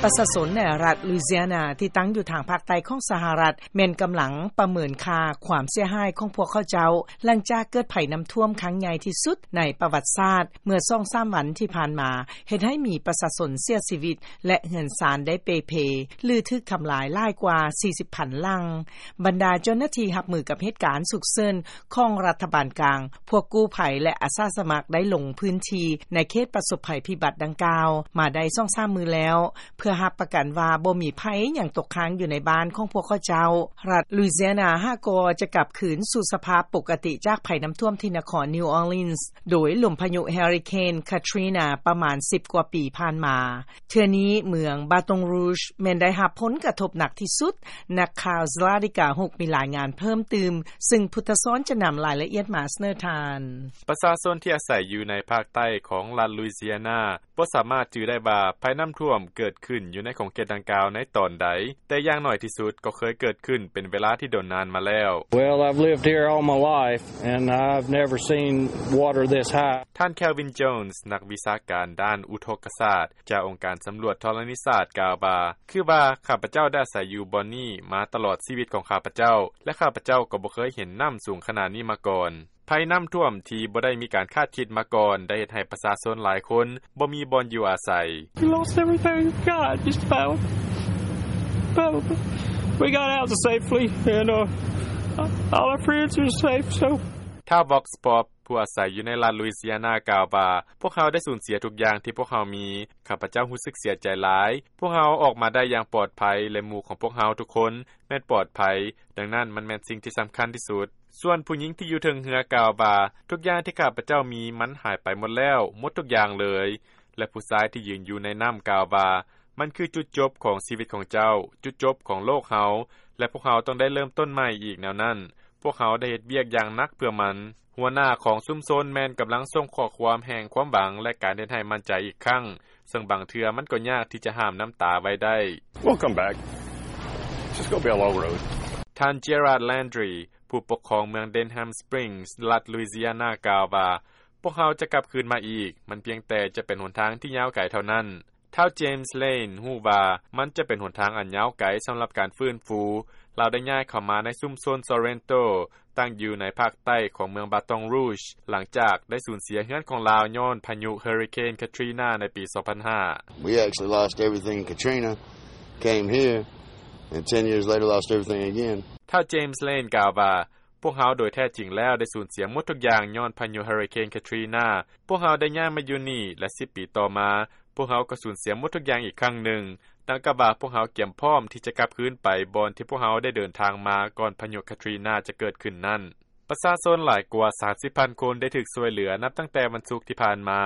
ປະຊາຊົນໃນລັດ Louisiana ທີ່ຕັ້ງຢູ່ທາງພາກໃຕ້ຂອງສະຫະລັດ ແມ່ນກຳລັງປະເມີນຄ່າຄວາມເສຍຫາຍຂອງພວກເຂົາເຈົ້າ ຫຼັງຈາກເກີດໄພນໍ້າຖ້ວມຄັ້ງໃຫຍ່ທີ່ສຸດໃນປະຫວັດສາດ ເມື່ອສອງສາມວັນທີ່ຜ່ານມາ ເຮັດໃຫ້ມີປະຊາຊົນເສຍຊີວິດ ແລະ ເຮືອນຊານໄດ້ເປ່ເພ ຫຼື ຖືກທຳລາຍຫຼາຍກວ່າສີ່ສິບພັນຫຼັງ. ບັນດາເຈົ້າໜ້າທີ່ຮັບມືກັບເຫດການສຸກເສີນຂອງລັດຖະບານກາງ, ພວກກູ້ໄພ ແລະ ອາສາສະໝັກໄດ້ລົງພື້ນທີ່ໃນເຂດປະສົບໄພພິບັດດັ່ງກ່າວມາໄດ້ສອງສາມມື້ແລ້ວ ເພື່ອຮັບປະກັນວ່າບໍ່ມີໄພຫຍັງຕົກຄ້າງຢູ່ໃນບ້ານຂອງພວກເຂົາເຈົ້າ. ລັດ Louisiana ຫາກໍຈະກັບຄືນສູ່ສະພາບປົກກະຕິຈາກໄພນໍ້າຖ້ວມທີ່ນະຄອນ New Orleans ໂດຍລົມພາຍຸ Hurricane Katrina ປະມານສິບກວ່າປີຜ່ານມາ. ເທື່ອນີ້ເມືອງ Baton Rouge ແມ່ນໄດ້ຮັບຜົນກະທົບໜັກທີ່ສຸດ. ນັກຂ່າວ Zlatica Hook ມີລາຍງານເພີ່ມຕື່ມ, ຊຶ່ງພຸດທະສອນຈະນຳລາຍລະອຽດມາສະເໜີທ່ານ. ປະຊາຊົນທີ່ອາໄສຢູ່ໃນພາກໃຕ້ຂອງລັດ Louisiana ບໍ່ສາມາດຈື່ໄດ້ວ່າໄພນໍ້າຖ້ວມເກີດຂຶ້ນຢູ່ໃນຂົງເຂດດັ່ງກ່າວໃນຕອນໃດ, ແຕ່ຢ່າງໜ້ອຍທີ່ສຸດກໍເຄີຍເກີດຂຶ້ນເປັນເວລາທີ່ດົນນານມາແລ້ວ. Well, I've lived here all my life, and I've never seen water this high. ທ່ານ Calvin Jones ນັກວິຊາການດ້ານອຸທົກກະສາດ ຈາກອົງການສຳຫຼວດທໍລະນີສາດ ກ່າວວ່າ, ຄືວ່າຂ້າພະເຈົ້າໄດ້ອາໄສຢູ່ບ່ອນນີ້ມາຕະຫຼອດຊີວິດຂອງຂ້າພະເຈົ້າ ແລະ ຂ້າພະເຈົ້າກໍບໍ່ເຄີຍເຫັນນໍ້າສູງຂະໜາດນີ້ມາກ່ອນ. ໄພນໍ້າຖ້ວມທີ່ບໍ່ໄດ້ມີການຄາດຄິດມາກ່ອນ ໄດ້ເຮັດໃຫ້ປະຊາຊົນຫຼາຍຄົນບໍ່ມີບ່ອນຢູ່ອາໄສ. We lost everything we've got, just about. But we got out safely, and, uh, all our friends are safe, so. ທ່ານ Vox Pop ຜູ້ອາໄສຢູ່ໃນລັດ Louisiana ກ່າວວ່າ, ພວກເຮົາໄດ້ສູນເສຍທຸກຢ່າງທີ່ພວກເຮົາມີ. ຂ້າພະເຈົ້າຮູ້ສຶກເສຍໃຈຫຼາຍ. ພວກເຮົາອອກມາໄດ້ຢ່າງປອດໄພ ແລະ ໝູ່ຂອງພວກເຮົາທຸກຄົນແມ່ນປອດໄພ, ດັ່ງນັ້ນມັນແມ່ນສິ່ງທີ່ສຳຄັນທີ່ສຸດ. ສ່ວນຜູ້ຍິງທີ່ຢູ່ເທິງເຮືອກ່າວວ່າ, ທຸກຢ່າງທີ່ຂ້າພະເຈົ້າມີມັນຫາຍໄປໝົດແລ້ວ, ໝົດທຸກຢ່າງເລີຍ. ແລະ ຜູ້ຊາຍທີ່ຢືນຢູ່ໃນນໍ້າກ່າວວ່າ, ມັນຄືຈຸດຈົບຂອງຊີວິດຂອງເຈົ້າ, ຈຸດຈົບຂອງໂລກເຮົາ, ແລະ ພວກເຮົາຕ້ອງໄດ້ເລີ່ມຕົ້ນໃໝ່ອີກແນວນັ້ນ. ພວກເຮົາໄດ້ເຮັດວຽກຢ່າງໜັກເພື່ອມັນ. ຫົວໜ້າຂອງຊຸມຊົນແມ່ນກຳລັງສົ່ງຂໍ້ຄວາມແຫ່ງຄວາມຫວັງ ແລະ ການເຮັດໃຫ້ໝັ້ນໃຈອີກຄັ້ງ, ເຊິ່ງບາງເທື່ອມັນກໍຍາກທີ່ຈະຫ້າມນ້ຳຕາໄວ້ໄດ້. We'll come back. Just go be a low road. ທ່ານ Gerard Landry ຜູ້ປົກຄອງເມືອງ Denham Springs ລັດ Louisiana ກ່າວວ່າ, ພວກເຮົາຈະກັບຄືນມາອີກ, ມັນພຽງແຕ່ຈະເປັນຫົນທາງທີ່ຍາວໄກເທົ່ານັ້ນ. ທ້າວ James Lane ຮູ້ວ່າມັນຈະເປັນຫົນທາງອັນຍາວໄກສຳລັບການຟື້ນຟູ. ລາວໄດ້ຍ້າຍເຂົ້າມາໃນຊຸມຊົນ Sorrento ຕັ້ງຢູ່ໃນພາກໃຕ້ຂອງເມືອງ Baton Rouge ຫຼັງຈາກໄດ້ສູນເສຍເຮືອນຂອງລາວຍ້ອນພາຍຸ Hurricane Katrina ໃນປີສອງພັນຫ້າ. We actually lost everything in Katrina, came here, and ten years later lost everything again. ທ້າວ James Lane ກ່າວວ່າ, ພວກເຮົາໂດຍແທ້ຈິງແລ້ວໄດ້ສູນເສຍໝົດທຸກຢ່າງຍ້ອນພາຍຸ Hurricane Katrina. ພວກເຮົາໄດ້ຍ້າຍມາຢູ່ນີ້ ແລະ ສິບປີຕໍ່ມາ, ພວກເຮົາກໍສູນເສຍໝົດທຸກຢ່າງອີກຄັ້ງໜຶ່ງ, ດັ່ງກັບວ່າພວກເຮົາກຽມພ້ອມທີ່ຈະກັບຄືນໄປບ່ອນທີ່ພວກເຮົາໄດ້ເດີນທາງມາກ່ອນພາຍຸ Katrina ຈະເກີດຂຶ້ນນັ້ນ. ປະຊາຊົນຫຼາຍກວ່າສາມສິບພັນຄົນໄດ້ຖືກຊ່ວຍເຫຼືອນັບຕັ້ງແຕ່ວັນສຸກທີ່ຜ່ານມາ,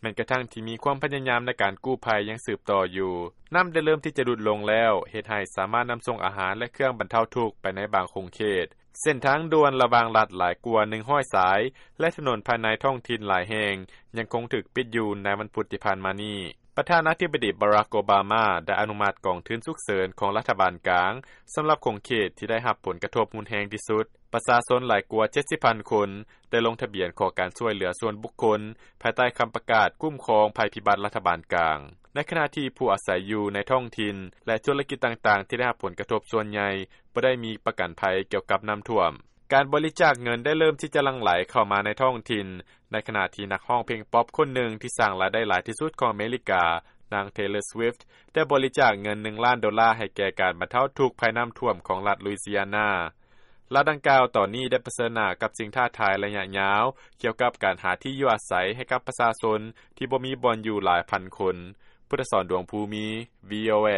ແມ່ນກະທັ່ງທີ່ມີຄວາມພະຍາຍາມໃນການກູ້ໄພຍັງສືບຕໍ່ຢູ່. ນໍ້າໄດ້ເລີ່ມທີ່ຈະຫຼຸດລົງແລ້ວ, ເຮັດໃຫ້ສາມາດນຳສົ່ງອາຫານ ແລະ ເຄື່ອງບັນເທົາທຸກໄປໃນບາງຂົງເຂດ. ເສັ້ນທາງດ່ວນລະຫວ່າງລັດຫຼາຍກວ່າໜຶ່ງຮ້ອຍສາຍ ແລະ ຖະໜົນພາຍໃນທ້ອງຖິ່ນຫຼາຍແຫ່ງຍັງຄົງຖືກປິດຢູ່ໃນວັນພຸດທີ່ຜ່ານມານີ້. ປະທານາທິບໍດີ Barack Obama ໄດ້ອະນຸມັດກອງທຶນສຸກເສີນຂອງລັດຖະບານກາງສຳລັບຂົງເຂດທີ່ໄດ້ຮັບຜົນກະທົບຮຸນແຮງທີ່ສຸດ. ປະຊາຊົນຫຼາຍກວ່າເຈັດສິບພັນຄົນໄດ້ລົງທະບຽນຂໍການຊ່ວຍເຫຼືອສ່ວນບຸກຄົນ ພາຍໃຕ້ຄຳປະກາດຄຸ້ມຄອງໄພພິບັດລັດຖະບານກາງ, ໃນຂະນະທີ່ຜູ້ອາໄສຢູ່ໃນທ້ອງຖິ່ນ ແລະ ທຸລະກິດຕ່າງໆທີ່ໄດ້ຮັບຜົນກະທົບສ່ວນໃຫຍ່ ບໍ່ໄດ້ມີປະກັນໄພກ່ຽວກັບນໍ້າຖ້ວມ. ການບໍລິຈາກເງິນໄດ້ເລີ່ມທີ່ຈະຫຼັ່ງໄຫຼເຂົ້າມາໃນທ້ອງຖິ່ນ, ໃນຂະນະທີ່ນັກຮ້ອງເພງປັອບຄົນໜຶ່ງທີ່ສ້າງລາຍໄດ້ຫຼາຍທີ່ສຸດຂອງອາເມລິກາ, ນາງ Taylor Swift ໄດ້ບໍລິຈາກເງິນໜຶ່ງລ້ານໂດລາໃຫ້ແກ່ການບັນເທົາທຸກໄພນໍ້າຖ້ວມຂອງລັດ Louisiana. ລັດດັ່ງກ່າວຕອນນີ້ໄດ້ປະເຊີນໜ້າກັບສິ່ງທ້າທາຍໄລຍະຍາວ ກ່ຽວກັບການຫາທີ່ຢູ່ອາໄສໃຫ້ກັບປະຊາຊົນທີ່ບໍ່ມີບ່ອນຢູ່ຫຼາຍພັນຄົນ. ພຸດທະສອນ ດວງພູມີ, VOA.